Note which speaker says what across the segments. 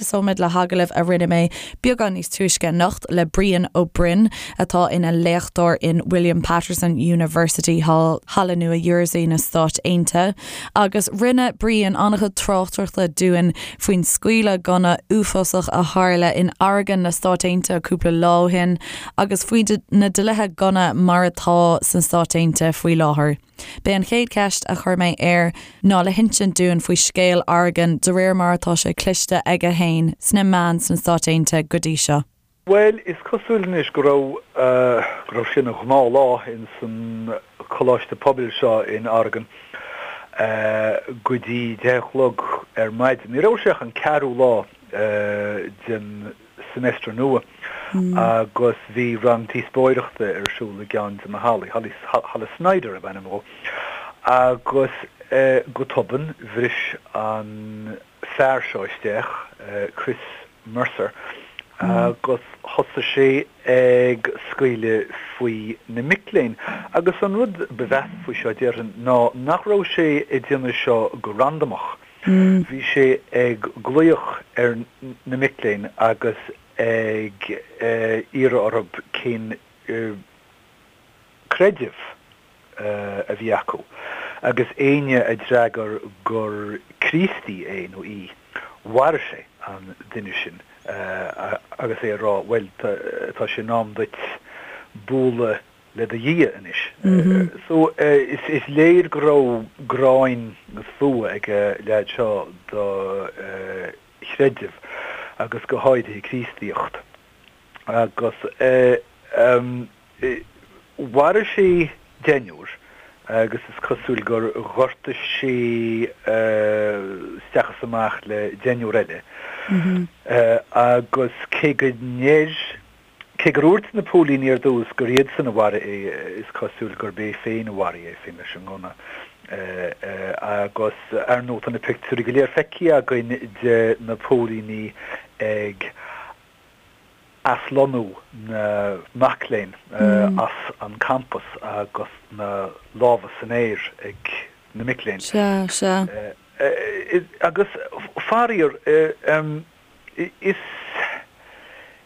Speaker 1: Tosóimid le hagallamh a rinne mé beagán níos túisce anocht le Brian Ó Broin, atá ina léachtóir in William Paterson University thall i Nua Jersey na Stáit Aontaithe. Agus rinne Brian an-chuid tráchtaireachta dúinn faoin scaoileadh gunna uafásach a tharla in Oregon na Stáit Aontaithe cúpla lá ó shin agus faoi na dlíthe gunna mar atá sna Stáit Aontaithe faoi láthair. B'é an chéad cheist a chuir mé air ná le hinsint dúinn faoi scéal Oregon de réir mar atá sé cloiste aige féin sna meáin sna Stáit Aontaithe go dtí seo.
Speaker 2: Bhuel, is cosúil anois go raibh, go raibh sé ina ghnáthlá ins an coláiste pobail seo in Oregon go dtí 10 a chlog ar maidin. Ní raibh sé ach an ceathrú lá den semester nua agus bhí rang díospóireachta ar siúl i gceann de na hallaí, Halla Snyder ab ainm dhó, agus go tobann bhris an fear seo isteach, Chris Mercer, agus thosaigh sé ag scaoileadh faoi na mic léinn. Agus an rud ba mheasa faoi seo, déarfainn, ná nach raibh sé ag déanamh seo go randamach. Bhí sé ag glaoch ar na mic léinn agus ag iarraidh orthu cén creideamh a bhí acu, agus éinne a d'fhreagair gur Críostaí é nó í, mharaigh sé an duine sin agus é ag rá, bhuel, tá sé in am duit bualadh le do Dhia anois. So, is léir go raibh gráin agus fuath ag an leaid seo do chreideamh agus go háirithe Críostaíocht. Agus mharaigh sé deichniúr agus is cosúil gur ghortaigh sé isteach is amach le deichniúr eile. Agus cé go ndeir, cé gur dhúirt na póilíní ar dtús gur iadsan a mharaigh é, is cosúil gurb é féin a mharaigh é féin leis an ngunna. Agus ar ndóigh tá na pictiúirí go léir feicthe againn de na póilíní ag aslonnú na mac léinn as an campas agus na lámha san aer ag na mic léinn.
Speaker 1: Sea, sea.
Speaker 2: Agus faraor, is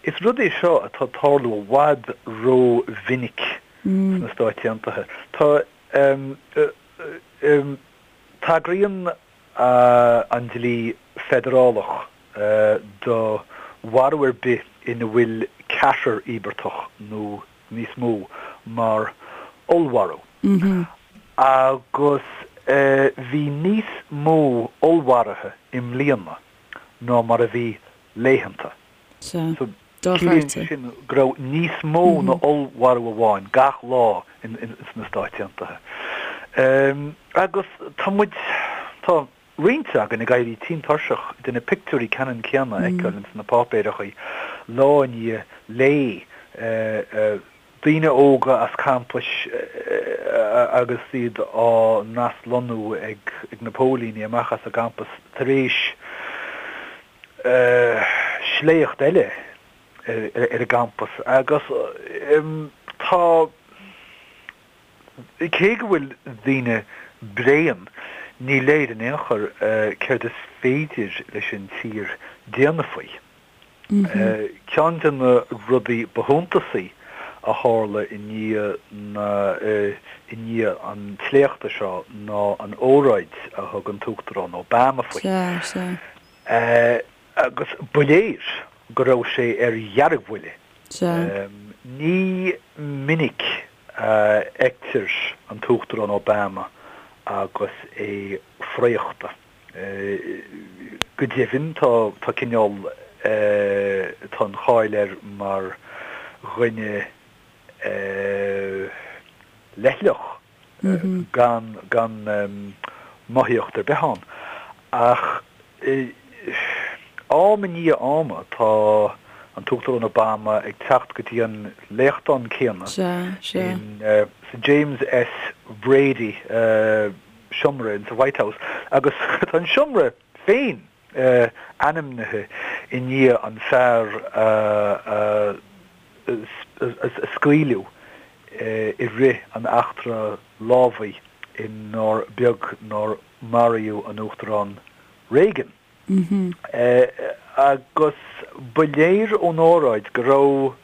Speaker 2: is rud é seo atá ag tarlú i bhfad ró-mhinic sna Stáit Aontaithe. Tá, tagraíonn an dlí feidearálach do mharú ar bith ina bhfuil ceathrar íobartach nó níos mó mar ollmharú. Agus bhí níos mó ollmharuithe i mbliana ná mar a bhí laethanta.
Speaker 1: Sea.
Speaker 2: Ciallaíonn sé sin go raibh níos mó ná ollmharú amháin gach lá sna Stáit Aontaithe. Agus tá muid, tá roinnt againn ag éirí tinn tuirseach de na pictiúirí ceannann céanna a fheiceáil ins na páipéireachaí lá i ndiaidh lae, daoine óga as campais agus iad á n-aslonnú ag na póilíní amach as an gcampas tar éis sléacht eile ar an gcampas agus tá, cé go bhfuil daoine bréan, ní léir in aon chor céard is féidir leis an tír déanamh faoi. Ceann de na rudaí ba shuntasaí a tharla i ndiaidh na, i ndiaidh an tsléachta seo ná an óráid a thug an tUachtarán Obama faoi.
Speaker 1: Sea, sea.
Speaker 2: Agus ba léir go raibh sé ar dheargbhuile.
Speaker 1: Sea.
Speaker 2: Ní minic a fheictear an tUachtarán Obama agus é fraochta. Go deimhin, tá, tá cineál, tá an cháil air mar dhuine leithleach, gan, gan mothaíocht ar bith ann. Ach am i ndiaidh ama, tá an tUachtarán Obama ag teacht go dtí an léachtán céanna in, sa James S. Brady, seomra in sa White House agus tá an seomra féin ainmnithe i ndiaidh an fear a scaoileadh i rith an eachtra lámhaigh inar beag nár maraíodh an Uachtarán Reagan. Agus ba léir ón óráid go raibh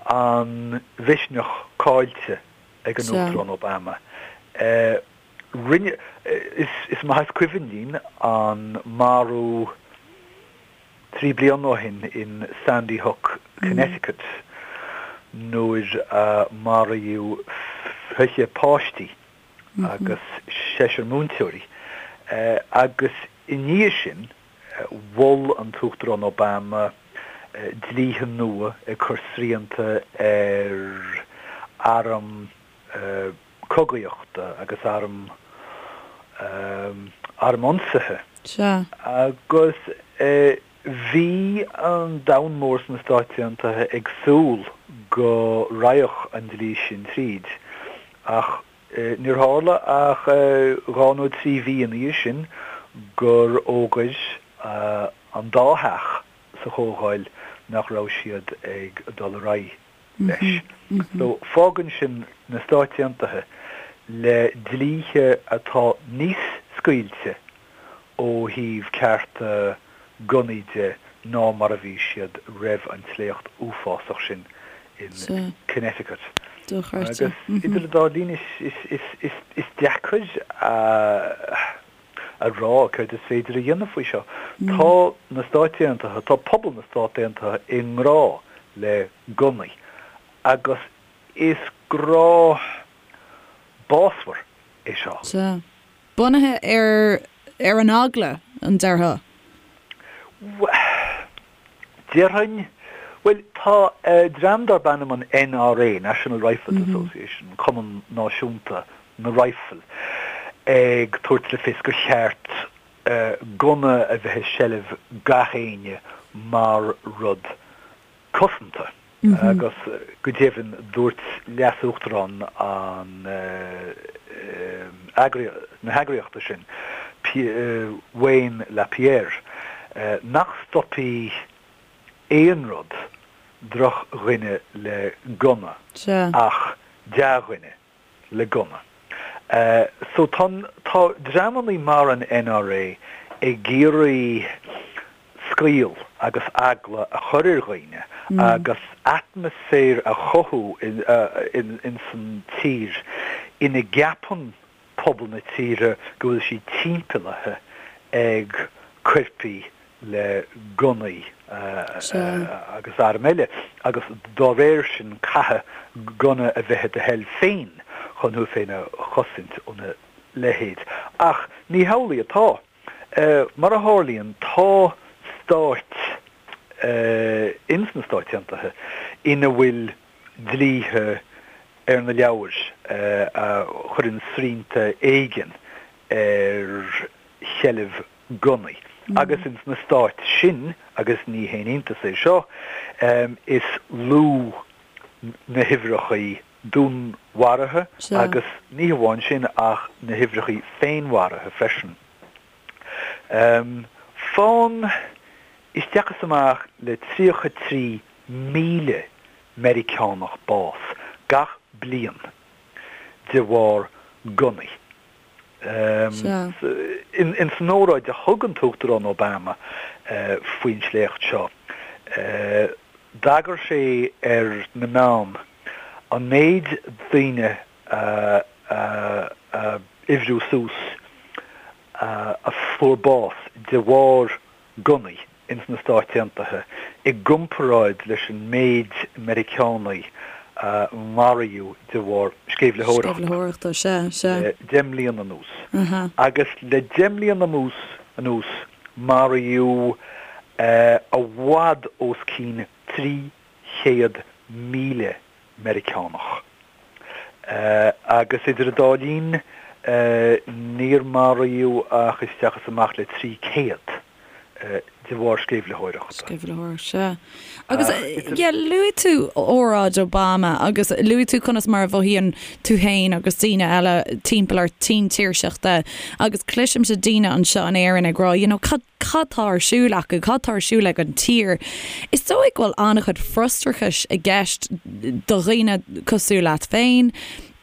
Speaker 2: an mhisneach caillte ag an Uachtarán Obama. Rinne, is maith is cuimhin linn an marú 3 bliana ó shin in Sandy Hook, Connecticut nuair a maraíodh 20 páistí agus seisear múinteoirí agus i ndiaidh sin mhol an tUachtarán Obama dlíthe nua ag cur srianta ar airm cogaíochta agus airm airm ionsaithe.
Speaker 1: Sea.
Speaker 2: Agus bhí an domhan mór sna Stáit Aontaithe ag súil go raghadh an dlí sin tríd, ach níor tharla ach 2 nó 3 mhí ina dhiaidh sin gur fhógair an dá theach sa Chomhdháil nach raibh siad ag dul ar aghaidh leis. So fágann sin na Stáit Aontaithe le dlíthe atá níos scaoilte ó thaobh cearta gunnaí de ná mar a bhí siad roimh an tsléacht uafásach sin in Connecticut.
Speaker 1: Agus
Speaker 2: idir an dá linn is deacair a a rá céard is féidir a dhéanamh faoi seo. Tá na Stáit Aontaithe, tá pobal na Stát Aontaithe i ngrá le gunnaí agus is grá básmhar é seo.
Speaker 1: Sea. Bunaithe ar ar an eagla, an déarfá?
Speaker 2: Déarfainn, bhuel, tá dream darb ainm an NRA, National Rifles Association, Cumann Náisiúnta na Raidhfil, ag tabhairt le fios gur cheart gunna a bheith i seilbh gach éinne mar rud cosanta. Agus go deimhin dúirt leas-uachtarán an na heagraíochta sin, Wayne LaPierre, nach stopfaidh aon rud drochdhuine le gunna ach dea-dhuine. le gunna. So tá tá dreamannaí mar an NRA ag iarraidh scaoll agus eagla a chur ar dhaoine agus atmaisféar a chothú ins an tír ina gceapann pobal na tíre go bhfuil siad timpeallaithe ag coirpigh le gunnaí agus airm eile agus dá réir sin caithfidh gunna a bheith i do sheilbh féin chun thú féin a chosaint óna leithéid. Ach ní hamhlaidh atá. Mar a tharlaíonn, tá stáit ins na Stáit Aontaithe ina bhfuil dlíthe ar na leabhair a chuireann srianta éigin ar sheilbh gunnaí. Agus ins na stáit sin, agus ní haon iontas é seo, is lú na huimhreachaí dúnmharaithe agus ní hamháin sin ach na huimhreachaí féinmharaithe freisin. Faigheann isteach is amach le 33,000 Meiriceánach bás gach bliain de bharr gunnaí. In san óráid a thug an tUachtarán Obama faoin sléacht seo, d'agair sé ar na meáin an méid daoine a uimhriú suas a fuair bás de bharr gunnaí ins na Stáit Aontaithe i gcomparáid leis an méid Meiriceánaigh a maraíodh de bharr
Speaker 1: sceimhlitheoireachta
Speaker 2: le 10 mbliana anuas. Agus le 10 mbliana anuas maraíodh i bhfad os cionn 300,000 Meiriceánach. Agus idir an dá linn níor maraíodh ach isteach is amach le 300 de bharr sceimhlitheoireachta.
Speaker 1: Sceimhlitheoireacht, sea. Agus, yeah, luaigh tú óráid Obama agus luaigh tú conas mar a mhothaíonn tú féin agus daoine eile timpeall ort tinn tuirseachta agus cloisimse daoine anseo in Éirinn ag rá, you know, cad, cad tá ar siúl acu, cad tá ar siúl ag an tír. Is dóigh go bhfuil an-chuid frustrachais i gceist do dhaoine cosúil leat féin,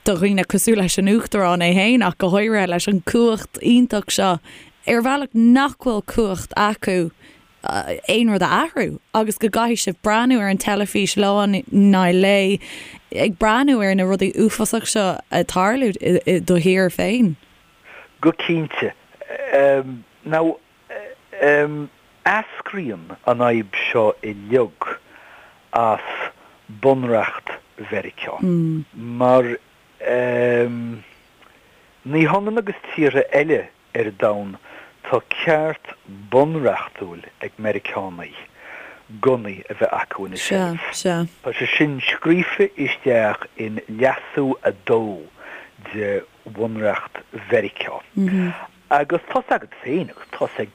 Speaker 1: do dhaoine cosúil leis an Uachtarán é féin ach go háirithe leis an cumhacht iontach seo. Ar bhealach nach bhfuil cumhacht acu aon rud a athrú agus go gcaithfidh sibh breathnú ar an teilifís lá i ndiaidh lae ag breathnú ar na rudaí uafásach seo ag tarlú i do thír féin.
Speaker 2: Go cinnte. Now, eascraíonn an fhadhb seo uilig as Bunreacht Mheiriceá. Mar ní hionann agus tíortha eile ar domhan, tá ceart bunreachtúil ag Meiriceánaigh gunnaí a bheith acu ina seilbh. Tá sé sin scríofa isteach in Leasú 2 de Bhunreacht Mheiriceá. Agus tá's agat féin, agus tá's ag,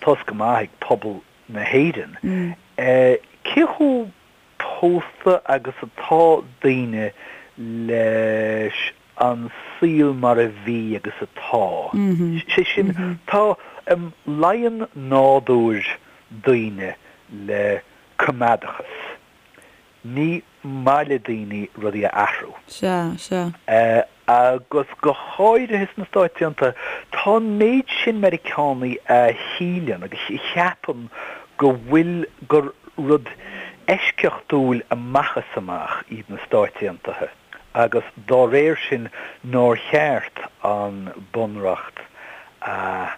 Speaker 2: tá's go maith ag pobal na hÉireann, cé chomh pósta agus atá daoine leis an saol mar a bhí agus atá. Sé sin, tá, luíonn nádúr daoine le coimeádachas. Ní maith le daoine rudaí a athrú.
Speaker 1: Sea, sea.
Speaker 2: Agus go háirithe sna Stáit Aontaithe, tá an méid sin Meiriceánaigh a shíleann agus a cheapann go bhfuil, gur rud eisceachtúil amach is amach iad na Stáit Aontaithe agus dá réir sin nár cheart an Bunreacht a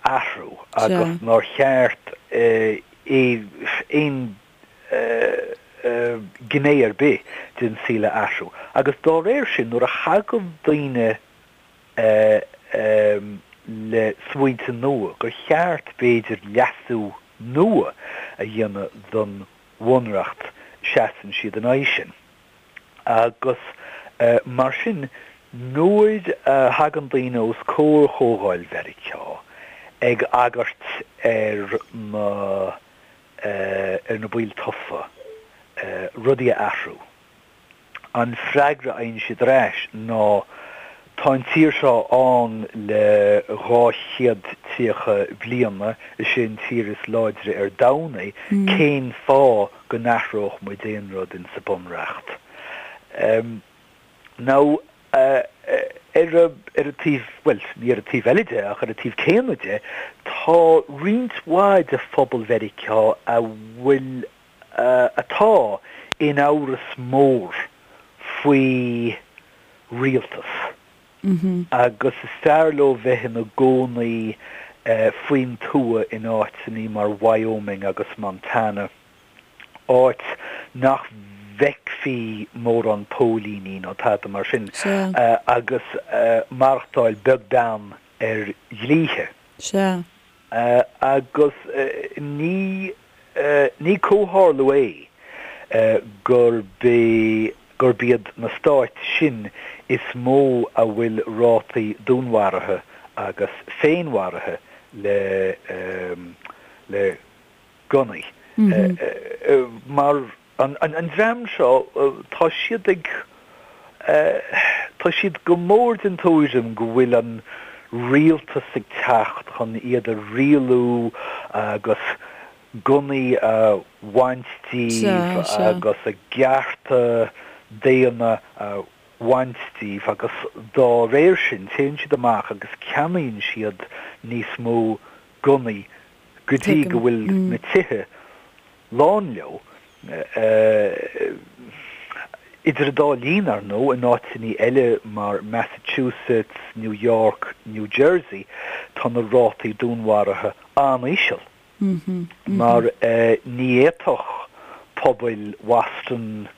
Speaker 2: athrú agus nár cheart aon gné ar bith den saol a athrú. Agus dá réir sin, nuair a thagann daoine le smaointe nua, gur cheart, b'fhéidir, leasú nua a dhéanamh don Bhunreacht, seasann siad in aghaidh sin. Agus mar sin, nuair a thagann daoine os comhair Chomhdháil Mheiriceá ag agairt ar na ar na baill tofa rudaí a athrú. An freagra a fhaigheann siad ar ais ná tá an tír seo ann le 230 bliana, is é an tír is láidre ar domhan é, cén fáth go n-athródh muid aon rud insa Bunreacht? Now, ar an taobh, bhuel, ní ar an taobh eile de, ach ar an taobh céanna de, tá roinnt mhaith de phobal Mheiriceá a bhfuil, atá in amhras mór faoi rialtas agus is fearr leo bheith ina gcónaí faoin tuath in áiteanna mar Wyoming agus Montana. áit nach bhfeicfí mórán póilíní nó tada mar sin agus maireachtáil beag beann ar dhlíthe.
Speaker 1: Sea.
Speaker 2: Agus ní ní comhtharlú é gurb é gurb iad na stáit sin is mó a bhfuil rátaí dúnmharaithe agus féinmharaithe le le gunnaí. Mar an dream seo, tá siad ag, tá siad go mór den tuairim go bhfuil an rialtas ag teacht chun iad a rialú agus gunnaí a bhaint díobh agus a gcearta daonna a bhaint díobh agus dá réir sin téann siad amach agus ceannaíonn siad níos mó gunnaí go dtí go bhfuil na tithe lán leo. Idir an dá linn, ar ndóigh, in áiteanna eile mar Massachusetts, New York, New Jersey, tá na rátaí dúnmharaithe an-íseal. Mar ní fhéadfadh pobail Bhoston,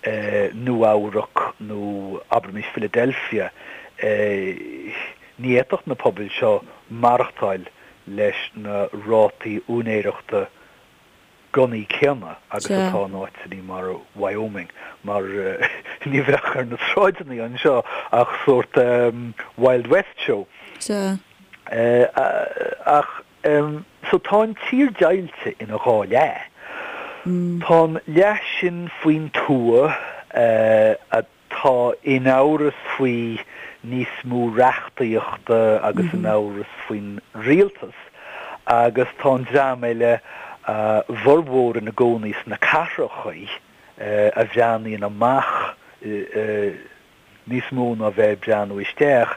Speaker 2: Nua-Eabhrac nó abraimis Philadelphia, ní fhéadfadh na pobail seo maireachtáil leis na rátaí úinéireachta gunnaí céanna agus atá in áiteanna mar Wyoming, mar ní bheadh ar na sráideanna anseo ach sórt Wild West show. Ach so tá an tír deighilte ina dhá leath. Tá an leath sin faoin tuath a tá in amhras faoi níos mó reachtaíochta agus in amhras faoin rialtas agus tá an dream eile, a bhformhór ina gcónaí sna cathrachaí, a bhreathnaíonn amach níos mó ná bheith ag breathnú isteach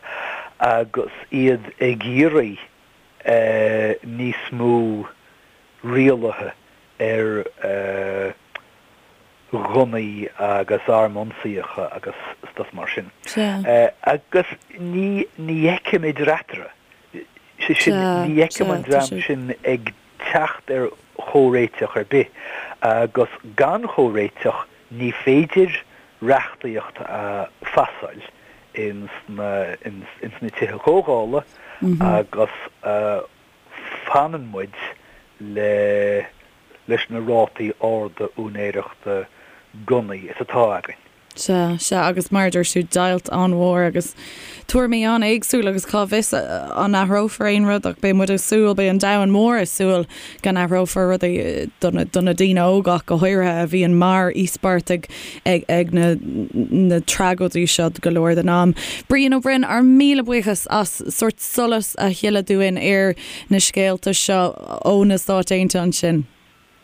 Speaker 2: agus iad ag iarraidh. Níos mó rialaithe ar ghunnaí agus airm ionsaíocha agus stuff mar sin. Agus ní ní fheicim idir eatarthu. Sé sin, ní fheicim an dream sin ag teacht ar chomhréiteach ar bith. Agus gan chomhréiteach ní féidir reachtaíocht a phasáil ins na ins na tithe comhdhála agus fanann muid le leis na rátaí arda úinéireachta gunnaí is atá againn.
Speaker 1: Sea, sea, agus mar a dúirt tú, deighilt an-mhór agus tuairimí an-éagsúil agus cá bhfios an athrófar aon rud ach beidh muid ag súil, beidh an domhan mór ag súil go n-athrófar rudaí do na daoine óga ach go háirithe a bhíonn mar íospartaigh ag na na tragóidí seo go leor den am. Brian Ó Broin, ár míle buíochas as sórt solas a shileadh dúinn ar na scéalta seo ó na Stáit Aontaithe ansin.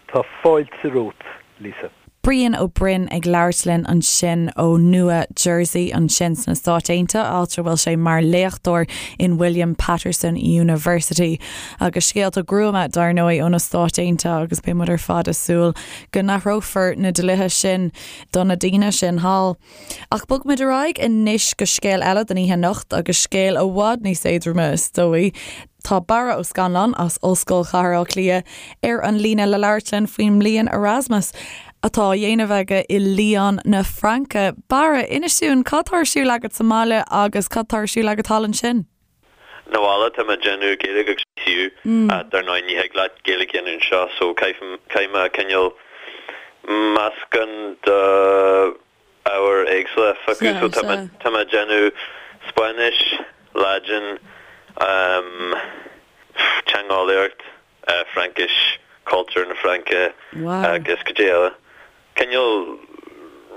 Speaker 2: Tá fáilte romhat, Lisa.
Speaker 1: Brian Ó Broin ag labhairt linn ansin ó Nua Jersey ansin sna Stáit Aontaithe, áit a bhfuil sé mar léachtóir in William Paterson University. Agus scéalta gruama, dar ndóigh, ó na Stáit Aontaithe agus beidh muid ar fad ag súil go n-athrófar na dlíthe sin do na daoine sin thall. Ach bogfaimid ar aghaidh anois go scéal eile don oíche anocht agus scéal i bhfad níos éadroime is dóigh. Tá Barra Ó Scannláin as Ollscoil Chathair Átha Cliath ar an líne le labhairt linn faoin mbliain Erasmus atá á dhéanamh aige i Lyon na Fraince. Barra, inis dúinn cad tá ar siúl agat sa mbaile agus cad tá ar siúl agat thall ansin?
Speaker 3: Sa bhaile tá mé ag déanamh Gaeilge agus DCU. Dar ndóigh ní thig leat Gaeilge a dhéanamh anseo so caithfidh mé cineál meascán de ábhair éagsúla a phiocadh. So tá mé tá mé ag déanamh Spáinnis, Laidin, teangeolaíocht, Fraincis, cultúr na Fraince agus cad é eile. Cineál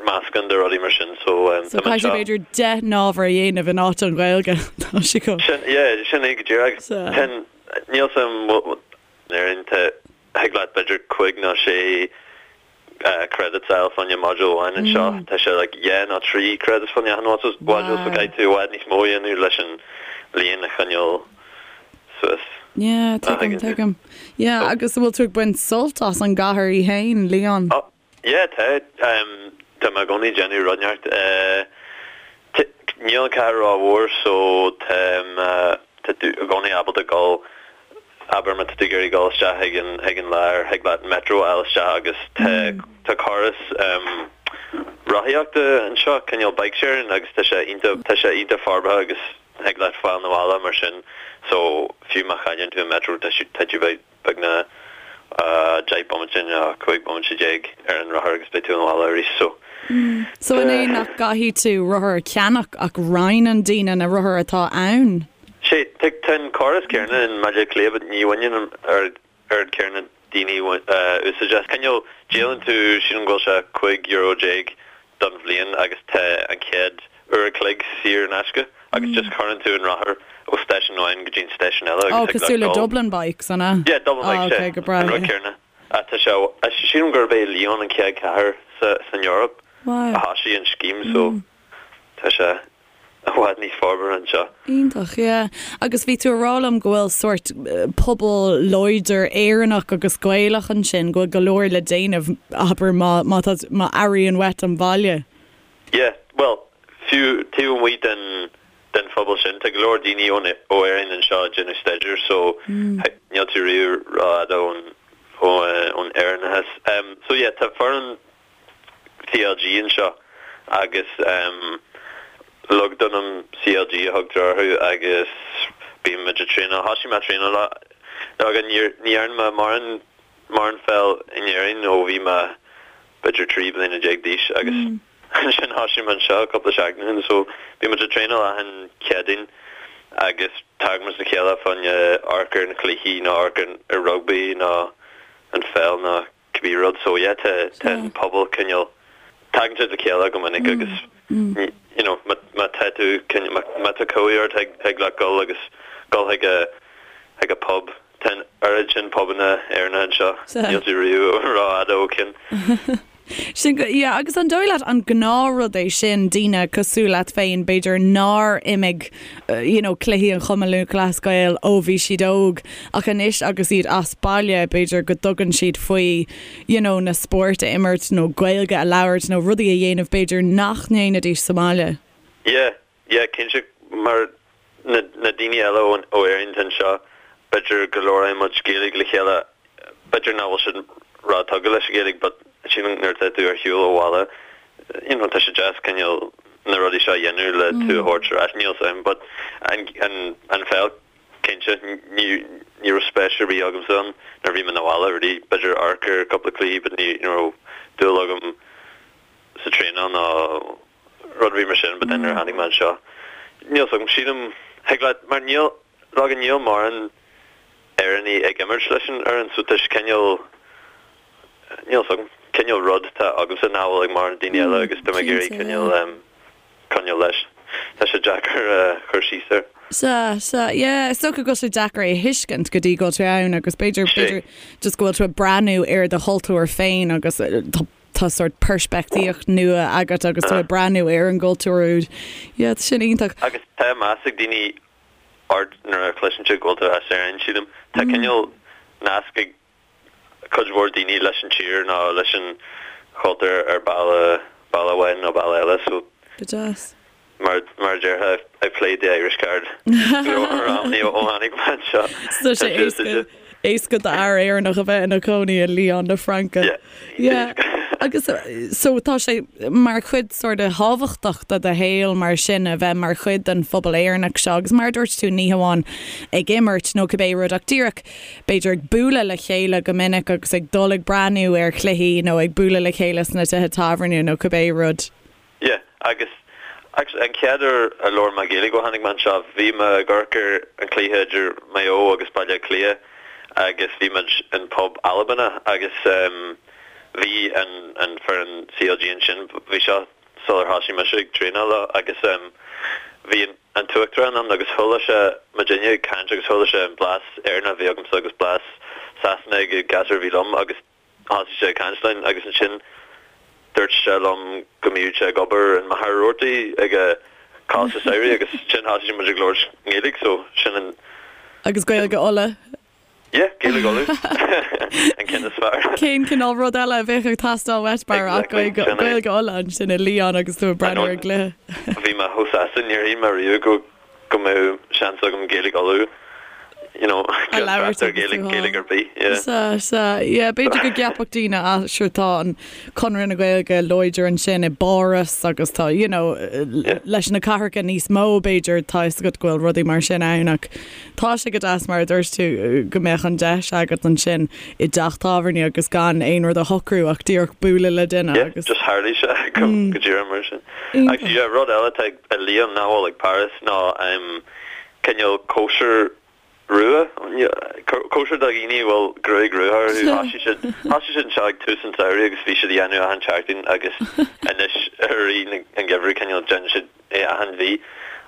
Speaker 3: meascán de rudaí mar sin so
Speaker 1: So tá mé caithfidh tú anseo. b'fhéidir 10 n-ábhar a dhéanamh in áit an Ghaeilge. Tá sé
Speaker 3: go. Sin, yeah, sin é go díreach. Tá an, níl 's a'm, in Éirinn tá, thig leat b'fhéidir cúig nó sé credits a fháil fá choinne module amháin anseo. Tá sé like dhá nó trí credits fá choinne achan module so caithfidh tú i bhfad níos mó a dhéanamh leis an líon a choinneáil suas.
Speaker 1: Yeah, tuigim, tuigim. Yeah, agus an bhfuil tú ag baint sult as an gcathair í fhéin, Lyon?
Speaker 3: Oh, yeah, tá. Tá mé i gcónaí ag déanamh rud inteacht. Níl an cathair rómhór so tá tá tú i gcónaí ábalta dul Abair má tá tú ag iarraidh dul isteach chuig an chuig an lár, thig leat metro a fháil isteach agus tá tá córas rothaíochta anseo, cineál bike sharing agus tá sé iontach tá sé iontach forbartha agus thig leat fáil 'na bhaile mar sin so fiú má chailleann tú an metro tá tá tú beagnach 10 bomaite nó 15 bomaite ar an rothar agus beidh tú 'na bhaile arís
Speaker 1: so So an é nach gcaithfidh tú rothar a cheannach ach roinneann daoine na rothair atá ann?
Speaker 3: Sea, tá an córas céanna i mBaile Átha Cliath but ní bhaineann an oiread céanna daoine úsáid as. Cineál, díolann tú, sílim go bhfuil sé €15 don bhliain agus tá an chéad uair a chloig saor in aisce agus just cuireann tú an rothar ó stáisiún amháin go dtí an stáisiún eile
Speaker 1: agus thig leat dul. Cosúil le Dublin Bikes, an ea?
Speaker 3: Yeah, Dublin Bikes, sea, an rud céanna. Tá sé, sílim gurb é Lyon an chéad chathair san Eoraip a thosaigh an scéim so tá sé i bhfad níos forbartha anseo.
Speaker 1: Iontach, yeah. Agus bhí tú ag rá liom go bhfuil sórt pobal láidir Éireannach agus Gaelach ansin, go bhfuil go leor le déanamh, abair, má, má tá, má airíonn uait an baile.
Speaker 3: Yeah, bhuel, fiú taobh amuigh den, den phobal sin, tá go leor daoine ón, ó Éirinn anseo ag déanamh staidéir so níl tú riamh rófhada ón, ó, ón Éireannachas. So yeah, tá foireann CLG anseo agus Lugdunum CLG a thugtar orthu agus bíonn muid ag traenáil, thosaigh mé ag traenáil leo agus ní dhearna mé mórán mórán peil in Éirinn ó bhí mé b'fhéidir 13 bliana d'aois agus ansin thosaigh mé anseo cúpla seachtain ó shin so bíonn muid ag traenáil achan Chéadaoin agus tagann muid le chéile fá choinne amharc ar na cluichí nó amharc ar rugbaí nó an pheil nó cibé rud so yeah tá tá an pobal cineál tagann siad le chéile go minic agus you know má má tá tú cineál má má tá cumhaidh ort thig thig leat dul agus dul chuig a chuig a pub tá an oiread sin pubanna Éireannacha anseo níl tú riamh rófhada ó cheann.
Speaker 1: Sin go, yeah, agus an dóigh leat an gnáthrud é sin, daoine cosúil leat féin, b'fhéidir nár imir, you know, cluichí an Chumann Lúthchleas Gael ó bhí siad óg, ach anois agus iad as baile, b'fhéidir go dtugann siad faoi, you know, na spóirt a imirt nó Gaeilge a labhairt nó rudaí a dhéanamh b'fhéidir nach ndéanfaidís sa mbaile.
Speaker 3: Yeah, yeah, cinnte, mar na na daoine eile ó ó Éirinn atá anseo, b'fhéidir go labhraíonn muid Gaeilge le chéile, b'fhéidir nach bhfuil siad ró-tugtha leis an Ghaeilge but sílim nuair atá tú ar shiúl ó bhaile, you know, tá sé deas cineál na rudaí seo a dhéanamh le tú a thabhairt ar ais, níl 's a'm but an an an pheil cinnte ní ní raibh spéis ar bith agamsa ann nuair a bhí mé 'na bhaile really, b'fhéidir amharc ar cúpla cluichí but ní ní raibh dúil agam sa traenáil ná rud ar bith mar sin but then nuair a tháinig mé anseo níl 's agam sílim thig leat mar níl leoga níl mórán Éireannaigh ag imirt leis an fhoireann so tá sé cineál níl 's agam cineál rud atá agamsa nach bhfuil ag mórán daoine eile agus tá mé ag iarraidh cineál em coinneáil leis tá sé deacair a chur síos air.
Speaker 1: Sea, sea, yeah, is dócha go bhfuil sé deacair é a thuiscint go dtí go bhfuil tú ann agus b'fhéidir, b'fhéidir just go bhfuil tú ag breathnú ar do chultúr féin agus tá tá sórt peirspictíocht nua agat agus tú ag breathnú ar an gcultúr úd. Yeah, tá sin iontach.
Speaker 3: Agus tá meas ag daoine ort nuair a chloiseann siad go bhfuil tú as Éirinn, sílim. Tá cineál nasc ag cuid mhór daoine leis an tír nó leis an chultúr ar bealach, bealach amháin nó bealach eile so.
Speaker 1: Go deas.
Speaker 3: Mar mar a déarfá, I've played the Irish card go leor amannaí ó tháinig mé anseo.
Speaker 1: So tá sé éasca, éasca d'fhear Éireannach a bheith ina chónaí i Lyon na Fraince.
Speaker 3: Yeah.
Speaker 1: Yeah. Agus so tá sé mar chuid sort of thábhachtach de do shaol mar sin a bheith mar chuid den phobal Éireannach seo agus mar a dúirt tú ní hamháin ag imirt nó cibé rud ach díreach b'fhéidir ag bualadh le chéile go minic agus ag dul ag breathnú ar chluichí nó ag bualadh le chéile sna tithe tábhairne nó cibé rud.
Speaker 3: Yeah, agus actually an chéad uair a labhair mé Gaeilge ó tháinig mé anseo, bhí mé ag amharc ar an cluiche idir Maigh Eo agus Baile Átha Cliath agus bhí muid in pub Albanach agus em bhí an an foireann CLG ansin, bhí seo sular thosaigh mise ag traenáil leo agus em bhí an an t-uachtarán ann agus chuala sé muidinne ag caint agus chuala sé an blas Éireannach a bhí agamsa agus blas Sasanach ag an gasúr a bhí liom agus Thosaigh sé ag caint linn agus ansin dúirt sé liom go mbíodh sé ag obair in Machaire Rabhartaigh ag an Coláiste Samhraidh agus ansin thosaigh muid ag labhairt nGaeilge so sin an.
Speaker 1: Agus Gaeilge Uladh.
Speaker 3: Yeah, Gaeilge Uladh. An ceann is fearr.
Speaker 1: Cén cineál rud eile a bheadh ag teastáil uait mar ach
Speaker 3: Exactly, sin é.
Speaker 1: Gaeilge Uladh ansin i Lyon agus tú ag breathnú ar an gcluiche.
Speaker 3: Bhí mé chomh sásta, níor shíl mé riamh go go mbeadh seans agam Gaeilge Uladh, you know,
Speaker 1: A labhairt
Speaker 3: ar
Speaker 1: agus
Speaker 3: Gaeilge,
Speaker 1: tú
Speaker 3: Gaeilge ar bith, yeah.
Speaker 1: Sea, sea, yeah, b'fhéidir go gceapfadh daoine, ah, sure tá an Conradh na Gaeilge láidir ansin i bPáras agus tá, you know,
Speaker 3: Yeah.
Speaker 1: leis na cathracha níos mó b'fhéidir tá fhios agat go bhfuil rudaí mar sin ann ach tá sé go deas mar a dúirt tú go mbeadh an deis agat ansin i dteach tábhairne agus gan aon rud a shocrú ach díreach bualadh le duine
Speaker 3: Yeah,
Speaker 1: agus
Speaker 3: just tharlaigh sé go go díreach mar sin. Actually, yeah, rud eile atá ag i Lyon nach bhfuil ag Paris ná cineál cóisir rua, cóisir do dhaoine a bhfuil gruaig rua orthu. Thosaigh siad, thosaigh siad anseo ag tús an tsamhraidh agus bhí siad á dhéanamh achan tseachtain agus anois i rith an gheimhridh cineál déanann siad é achan mhí.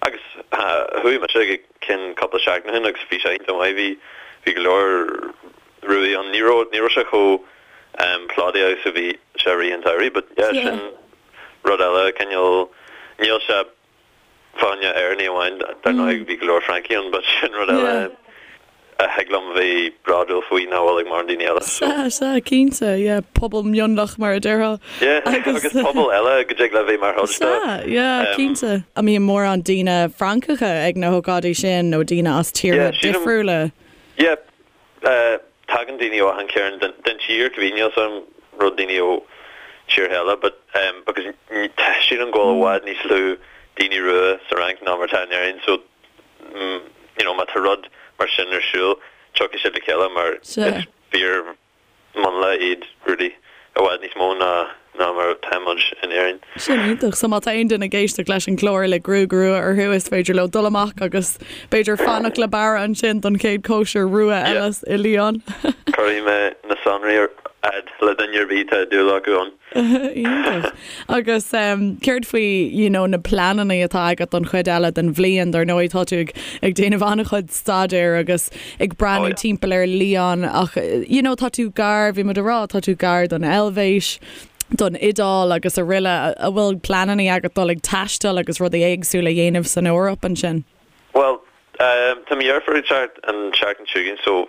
Speaker 3: Agus chuaigh mise ag ceann cúpla seachtain ó shin agus bhí sé iontach maith, bhí, bhí go leor ruaí ann. Ní raibh, ní raibh sé chomh plódaithe agus a bhí sé i rith an tsamhraidh but yeah sin Rud eile, cineál, níl sé fá choinne Éireannaigh amháin, dar ndóigh bhí go leor Francaigh ann, but sin rud eile a thig liom bheith bródúil faoi nach bhfuil ag mórán daoine eile,
Speaker 1: so. Sea, sea, cinnte, yeah, pobal mionlach mar a déarfá.
Speaker 3: Yeah, agus pobal eile go dtig le bheith mar chuid de.
Speaker 1: Sea, yeah, cinnte. An mbíonn mórán daoine Francacha ag na hócáidí sin nó daoine as tíortha difriúla?
Speaker 3: Yeah, Tagann daoine ó achan chearn den tír, cibé, níl 's a'm an raibh daoine ó tíortha eile but because sílim go bhfuil i bhfad níos lú daoine rua sa Fhrainc ná mar atá in Éirinn so you know má tá rud mar sin ar siúl tiocfaidh siad le chéile mar is fíor mionlach iad really i bhfad níos mó ná ná mar atá muid in Éirinn.
Speaker 1: Sin iontach. So má tá aon duine ag éisteacht leis an gclár le gruaig rua orthu is féidir leo dul amach agus b'fhéidir fanacht le Barra ansin don chéad cóisir rua eile i Lyon.
Speaker 3: Cuirfidh mé na sonraí ar fhad le duine ar bith atá dúil acu ann.
Speaker 1: Iontach. Agus céard faoi you know na pleananna atá agat don chuid eile den bhliain? Dar ndóigh tá tú ag ag déanamh an-chuid staidéir agus ag breathnú timpeall ar Lyon ach you know tá tú gar, bhí muid a rá, tá tú gar don Eilvéis. Don Iodáil agus araile. An bhfuil pleananna agat dul ag taisteal agus rudaí éagsúla a dhéanamh san Eoraip ansin?
Speaker 3: Bhuel, tá mo dheirfiúr ag teacht an tseachtain seo chugainn so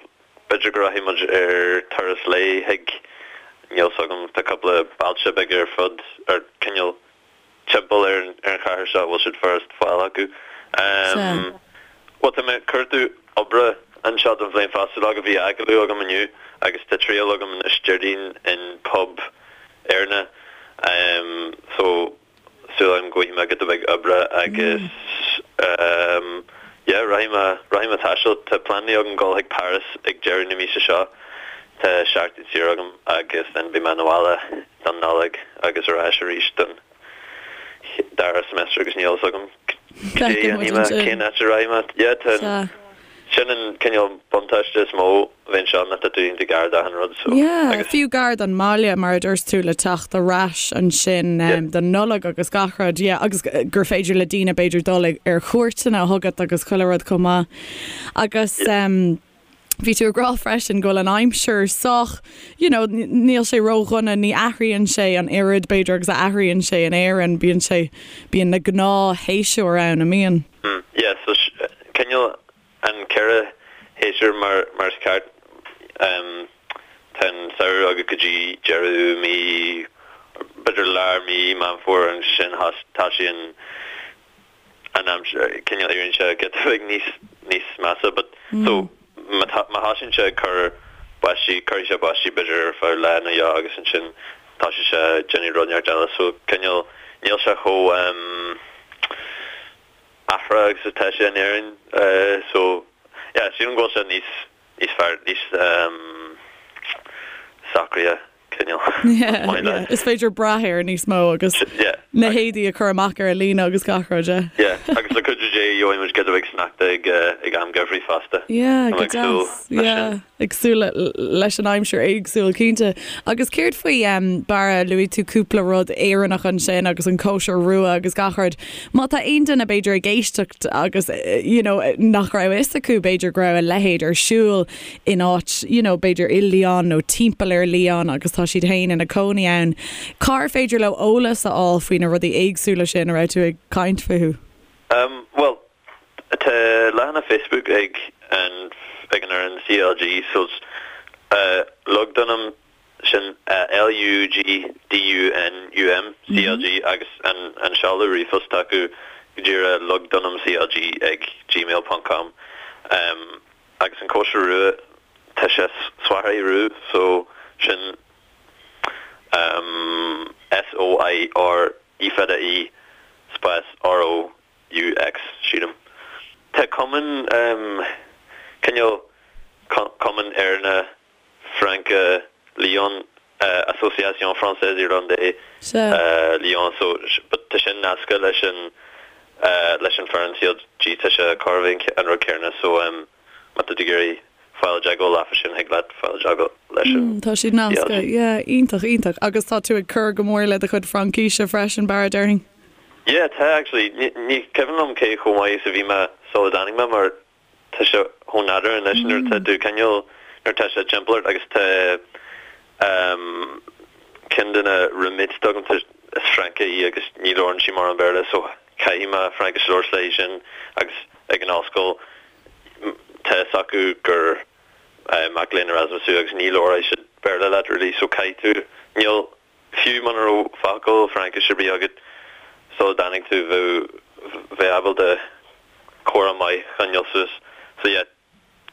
Speaker 3: b'fhéidir go rachaidh muid ar turas lae chuig, níl 's agam, tá cúpla bailte beaga ar fud, ar cineál timpeall ar an chathair seo a bhfuil siad furast fáil acu. Bhuel, tá mé ag cuartú oibre anseo don bhliain fosta, like bhí agallamh agam inniu agus tá triail agam anois Déardaoin in pub Éireannach so súil agam go bhfaighidh mé giota beag oibre agus yeah rachaidh mé rachaidh mé taisteal. Tá pleananna agam dul chuig Paris ag deireadh na míosa seo. Tá seachtain saor agam agus then beidh mé na bhaile don Nollaig agus ar ais arís don dara semester agus níl fhios agam cad é a dhéanfaidh mé, cén áit a rachaidh mé. Yeah, tá, sin an cineál buntáiste is mó a bheith anseo ná tá tú iontach gar d'achan rud so
Speaker 1: Yeah, agus. fiú gar don mbaile mar a dúirt tú le teacht ar ais ansin Yeah. don Nollaig agus gach rud, yeah, agus gur féidir le daoine b'fhéidir dul ar chuairteanna chugat agus chuile rud chomh maith. Agus Yeah. Bhí tú ag rá freisin go bhfuil an aimsir sách, you know, níl sé ródhona, ní athraíonn sé an oiread b'fhéidir agus a athraíonn sé in Éirinn, bíonn sé, bíonn na gnáthshéasúir ann, an mbíonn?
Speaker 3: Mm, yeah, so cineál an ceithre shéasúr mar, mar is ceart, um, tá an samhradh agat go dtí deireadh mí, b'fhéidir lár mí Meán Fómhair ansin tá sé an, an aimsir, cineál éiríonn sé giota beag níos, níos measa but so má tá, má thosaíonn sé ag cur báistí, cuirfidh sé báistí b'fhéidir ar feadh lá nó dhó agus ansin tosaíonn sé ag déanamh rud inteacht eile so cineál, níl sé chomh ehm athraitheach agus atá sé in Éirinn so yeah sílim go bhfuil sé níos, níos fearr, níos ehm socraithe. cineál.
Speaker 1: Yeah, yeah. Is féidir brath air níos mó agus
Speaker 3: Yeah.
Speaker 1: na héadaí a chur amach ar an líne agus gach rud,
Speaker 3: yeah. Yeah, agus le cuidiú Dé gheobhaidh muid giota beag sneachta ag, eh, ag am geimhridh fosta.
Speaker 1: Yeah,
Speaker 3: Tá mé
Speaker 1: go
Speaker 3: ag súil
Speaker 1: deas.
Speaker 3: leis
Speaker 1: Yeah,
Speaker 3: sin.
Speaker 1: ag súil le, leis an aimsir éagsúil, cinnte. Agus céard faoi, em, Barra, luaigh tú cúpla rud Éireannach ansin agus an cóisir rua agus gach rud. Má tá aon duine b'fhéidir ag éisteacht agus, eh, you know, nach raibh fhios acu b'fhéidir go raibh a leithéid ar siúl, in áit, you know, b'fhéidir i Lyon nó timpeall ar Lyon agus tá siad féin ina cónaí ann, cár féidir leo eolas a fháil faoi na rudaí éagsúla sin a raibh tú ag caint fúthu?
Speaker 3: Um, bhuel, tá leathanach Facebook ag an, ag an fhoireann CLG so, uh, Lugdunum sin L-U-G-D-U-N-U-M CLG agus an an seoladh ríomhphost acu go díreach lugdunumclg ag gmail ponc com. Agus an cóisir rua tá sé soirée roux so sin S-O-I-R E fada E spás R-O-U-X sílim. Tá cumann cineál cumann Éireannach Fraince Lyon, Association Française Irlandaise Lyon so but tá sin nasctha leis an leis an foireann CLG tá sé chóir a bheith an rud céanna so má tá tú ag iarraidh fáil i dteagmháil leofa sin thig leat fáil i dteagmháil leis an
Speaker 1: Tá siad nasctha, yeah, iontach, iontach. Agus tá tú ag cur go mór le do chuid Fraincíse freisin, Barra, déarfainn?
Speaker 3: Yeah, tá actually. Ní cuimhin liom cé chomh maith is a bhí mé sula dtáinig mé mar Tá sé chomh nádúrtha anois nuair atá tú cineál, nuair atá sé timpeall ort agus tá ceann de na roommates agam, tá, is Francach í agus ní labhrann sí mórán Béarla so caithfidh mé Fraincis a labhairt léi sin agus ag an ollscoil tá fhios acu gur mac léinn Erasmus thú agus ní labhróidh siad Béarla leat really so caithfidh tú, níl, Fiú muna raibh focal Fraincis ar bith agat sula dtáinig tú, bheadh, bheith ábalta comhrá maith a choinneáil suas. So yeah,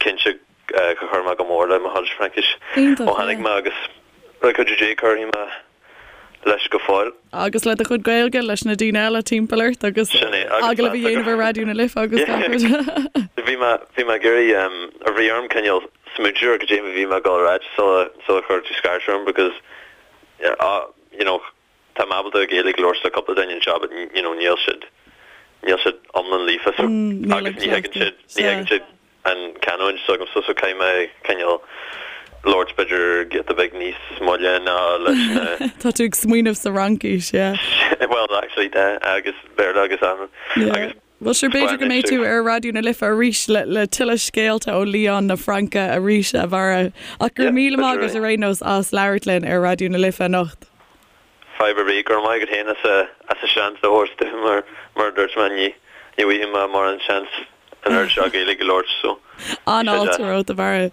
Speaker 3: cinnte gur chuir mé go mór le mo chuid Fraincis
Speaker 1: Iontach,
Speaker 3: ó tháinig
Speaker 1: yeah.
Speaker 3: mé agus le cuidiú Dé cuirfidh mé leis go fóill.
Speaker 1: Agus le do chuid Gaeilge leis na daoine eile timpeall ort agus
Speaker 3: Sin é, agus
Speaker 1: agallamh a
Speaker 3: meas
Speaker 1: dhéanamh ar Raidió na Life agus
Speaker 3: Yeah.
Speaker 1: gach rud.
Speaker 3: Bhí mé, bhí mé ag iarraidh, um, bhí orm cineál smaointiú ar cad é a bhí mé ag dul a ráit sula, sula chuir tú scairt orm because you know, tá mé ábalta Gaeilge a labhairt le cúpla duine anseo but you know, níl siad, níl siad iomlán líofa so
Speaker 1: níl
Speaker 3: agus
Speaker 1: an
Speaker 3: ní thuigeann
Speaker 1: cleachtadh.
Speaker 3: siad, ní
Speaker 1: Sea.
Speaker 3: thuigeann siad an canúint s'agamsa so caithfidh mé cineál labhairt b'fhéidir giota beag níos moille ná leis na
Speaker 1: Tá tú ag smaoineamh sa Fhraincis, yeah.
Speaker 3: Well actually tá agus Béarla agus an
Speaker 1: Yeah.
Speaker 3: agus
Speaker 1: Bhuel sure b'fhéidir go mbeidh tú ar Raidió na Life arís le le tuilleadh scéalta ó Lyon na Fraince arís a Bharra. Ach go raibh míle maith agat ar aon nós as labhairt linn ar Raidió na Life anocht.
Speaker 3: Fadhb ar bith, go raibh maith agat féin as as an seans a thabhairt dom mar mar a dúirt mé ní ní bhfaighidh mé mórán seans an oiread seo Gaeilge a labhairt so
Speaker 1: An-fháilte romhat a Bharra.